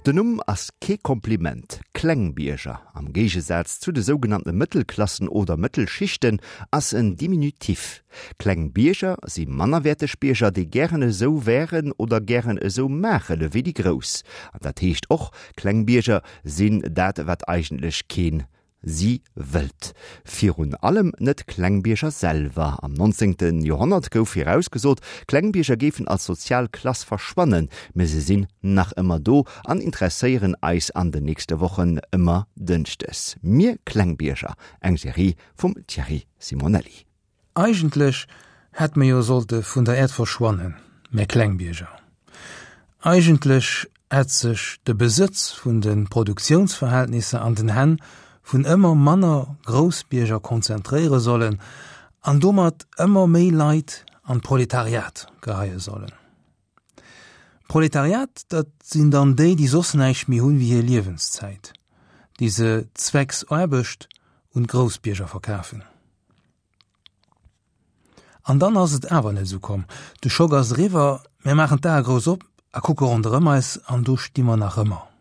Den Numm ass kee Kompliment, Klengbierger, am Géigesaz zu de sougenannte Mëttelklassen oder Mëttelschichten, ass en Diminutif. Kleng Bierger si mannerwäerteg Bierger, déi gären esou wären oder gären esou maachen ewéi déi Grouss. An dat heescht och, kleng Bierger sinn dat, wat eigentlech keen si wëllt. Virun allem net Klengbierger selwer. Am 19. Joerhonnert gouf virausgesot, Klengbierger géifen als sozial Klass verschwannen, mä se sinn nach ëmmer do an interesséieren eis an den nächste Wochen ëmmer dënschdes. Mir Klengbierger, eng Serie vum Thierry Simonelli. Eigentlech hätt mer jo sollte vun der Äerd verschwannen, mär Klengbierger. Eigentlech hätt sech de Besëtz vun de Produktiounsverhältnisser an den Hänn vun ëmmer manner Groussbierger konzentréiere sollen an domat ëmmer méi Leit an d'Proletariat geheie sollen. Proletariat, dat sinn dann déi, déi soss näischt méi hunn wéi hir Liewenszäit, déi se zwecks Aarbecht un d'Groussbierger verkafen. An dann ass et awer net esou komm. De Schock ass eriwwer, mir maachen d'Ae grouss op a kucke ronderëm eis an do sti mer nach ëmmer.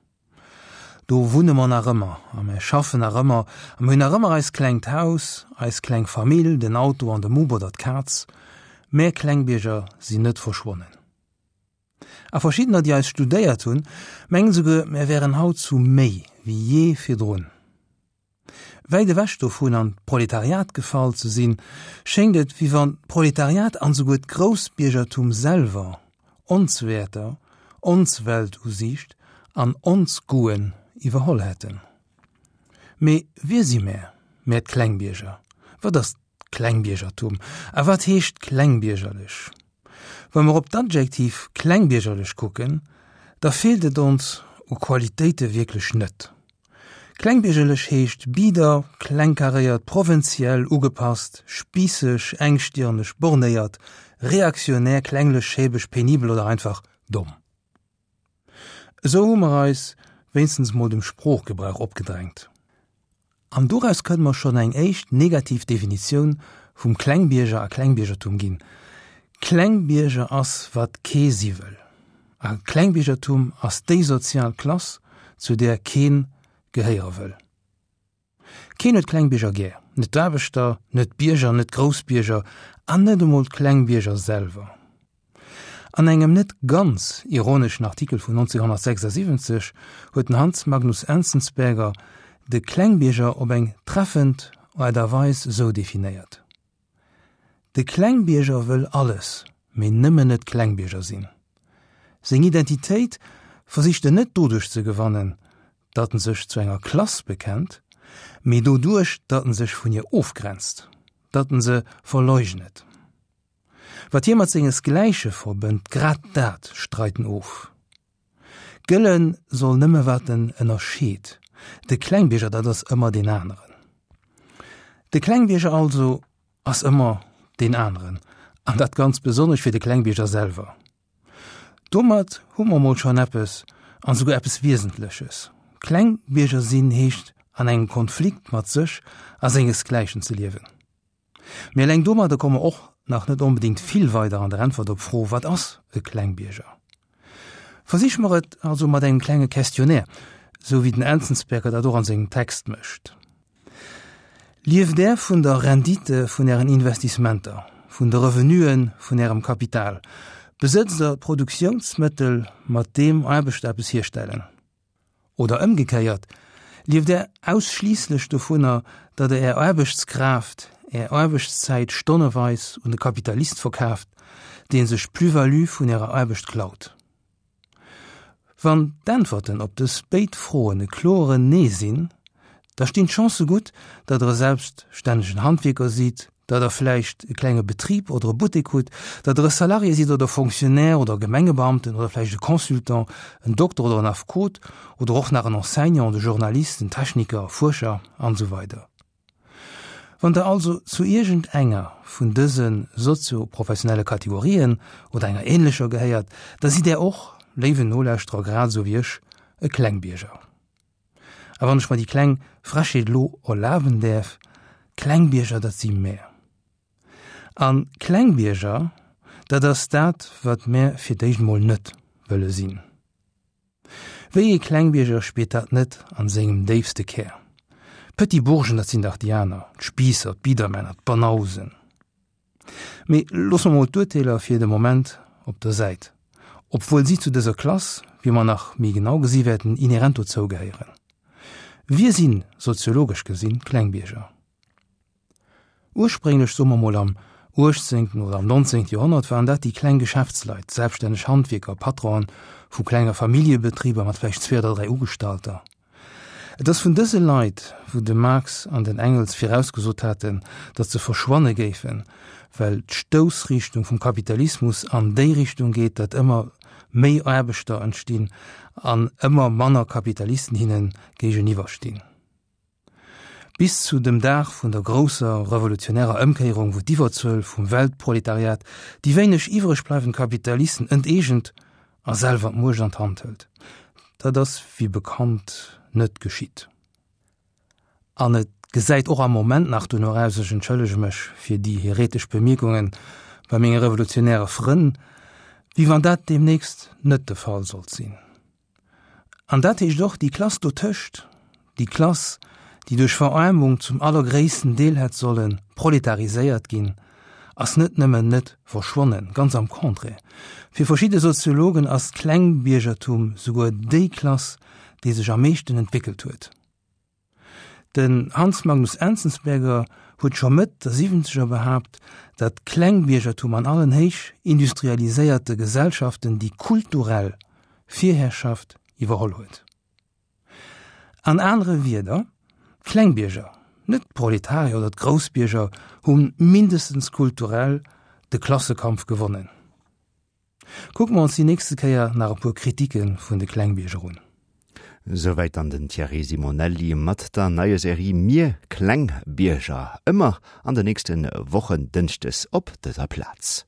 Do wunne mer nach ëmmer a mir schaffen nach ëmmer a mir hunn nach ëmmer eist klengt Haus, eis kleng Famill, den Auto an de Mupp oder d'Kaz. Mär Klengbierger sinn net verschwonnen. A verschiddener, déi eis studéiert hunn, mengen souguer, mär wären haut zu méi wéi jee virdrun. Wäit ewech dovun an d'Proletariat gefall ze sinn, schéngt et, wéi wann d'Proletariat an esouguer d'Groussbiergertum selwer ons Wäerter, ons Weltusiicht an ons Goûten iwwerholl hätten. Mee wie si mär, mär d'Klengbierger? Wat ass Klengbiergertum. A wat heescht klengbiergerlech? Wa mer op d'Adjektiv klengbiergerlech kucken, da feelt et ons u Qualitéite wierklech net. Klengbiergerlech heescht bieder, klengkaréiert, provinziell, ugepasst, spiisseg, engstirneg, bornéiert, reaktionär, klenglech, schäbeg, penibel oder einfach domm. Esou hu mer eis wéinstens mol dem Sproochgebrauch opgedrängt. An doraus kënne mer schonn eng éischt negativ Definitioun vum Klengbierger a Klengbiergertum ginn, Klengbierger ass, wat kee si wëll. A Klengbiergertum ass déi sozial Klass, zu där keen gehéiere wëll. Keen huet Klengbierger gär, net d'Aarbechter, net d'Bierger, net d'Groussbierger an net emol d'Klengbierger selwer. An engem net ganz ironeschen Artikel vun 1976 huet den Hans Magnus Enzensberger de Klengbierger op eng treffend Aart a Weis esou definéiert, De Klengbierger wëll alles, mee nëmmen net Klengbierger sinn. Seng Identitéit versicht en net doduerch ze gewannen, datt en sech zu enger Klass bekennt, mee doduerch, datt en sech vun hir ofgrenzt, datt en se verleugnet. Wat hie mat sengesgläiche verbënnt, grad dat streit en of. Gëlle soll nëmme wat en ënnerscheet. De Klengbierger, dat ass ëmmer deen aneren. De Klengbierger also ass ëmmer deen aneren, an dat ganz besonnesch fir de Klengbierger selwer. Domat hu mer mol schonn eppes, an esouguer eppes Wiesentleches. Klengbierger sinn heescht an engem Konflikt mat sech a sengesgläichen ze liewen. Mee eleng domadder komme mer och nach net onbedéngt vill weider an der Äntwert op d'Fro, Wat ass e Klengbierger? Versiche mer et also mat engem klenge Questionnaire, sou wéi den Enzensberger dat och an sengem Text mécht. Lieft Där vun der Rendite vun Ären Investissementer, vun de Revenuen vun Ärem Kapital? Besëtzt Der Produktiounsmëttel, mat deem Aarbechter eppes hierstellen? Oder ëmgekéiert, lieft Der ausschliisslech dovunner, datt Der Är Aarbechtskraaft, Är Aarbechtszäit stonneweis un de Kapitalist verkaaft, dee sech d'Plus-value vun Ärer Aarbecht klaut? Wann d'Äntwerten op dës béid Froen e kloeren Nee sinn, da stinn d'Chancë gutt, datt Der e selbststännegen Handwierker sidd, datt Der vläicht e klenge Betrib oder e Buttek hutt, datt Der e Salarié sidd oder Fonctionnaire oder Gemengebeamten oder vläicht e Consultant, en Dokter oder en Affekot oder och nach en Enseignant, e Journalist, en Techniker, e Fuerscher an esou weider. Wann Der also zu iergend enger vun dëse sozio-professionelle Kategorien oder enger ähnlecher gehéiert, da sidd Der och, léiwen Nolauschterer, grad esou wéi ech, e Klengbierger. A wann ech mer déi kleng Frechheet elo erlaben däerf, Klengbierger, dat si mär. A Klengbierger, dat ass dat, wat mär fir d'éischt emol net wëlle sinn. Wéi ee Klengbierger spiert dat net an sengem déifste Kär? D'Petit Bourgen, dat sinn dach déi aner, d'Spiisser, d'Biedermänner, d'Banausen. Mee loosse mer mol d'Urteeler fir de Moment op der Säit, obwuel si zu dëser Klass, wéi mer nach méi genau gesi wäerten, inherent dozou gehéieren. Wie sinn, soziologesch gesinn, d'Klengbierger? Ursprénglech, soe mer mol am uechtzéngten oder am nonzéngte Joerhonnert, waren dat déi kleng Geschäftsleit, selbststänneg Handwierker, Patronen vu klenger Familljebetriber mat vläicht zwee oder dräi Ugestallter. Et ass vun dëse Leit, wou de Marx an den Engels virausgesot haten, datt se verschwanne géifen, well d'Stoussrichtung vum Kapitalismus an déi Richtung geet, datt ëmmer méi Aarbechter entstinn an ëmmer manner Kapitalisten hinne géigeniwwer stinn. Bis zu dem Dag vun der grousser revolutionärer Ëmkéierung, wou d'Iwwerzuel vum Weltproletariat déi wéineg iwwreg bleiwend Kapitalisten enteegent a selwer d'Muecht an d'Hand hëlt. Dat ass wéi bekannt net geschitt. An et gesäit och am Moment nach dono aus, ech entschëllege mech fir déi heretesch Bemierkungen bei menge revolutionäre Frënn, wéi wann dat deemnächst net de Fall sollt sinn. An dat heescht och, déi Klass dotëscht, déi Klass, déi duerch Veraarmung zum allergréissten Deel hätt solle proletariséiert ginn, ass net nëmmen net verschwonnen, ganz am Contraire, fir verschidde Soziologen ass d'Klengbiergertum souguer déi Klass, déi sech am meeschten entwéckelt huet. Den Hans Magnus Enzensberger huet scho Mëtt der Siwwenzeger behaapt, datt d'Klengbiergertum an allen héich industrialiséierte Gesellschaften déi kulturell Virherrschaft iwwerholl huet. An anere Wierder, d'Klengbierger, net d'Proletarier oder d'Groussbierger, hu mindestens kulturell de Klassekampf gewonnen. Kucke mer ons déi nächste Kéier nach e puer Kritike vun de Klengbierger un. Souwäit dann den Thierry Simonelli mat der neier Serie Mir Klengbierger. Ëmmer an de nächste Wochen dënschdes op dëser Plaz.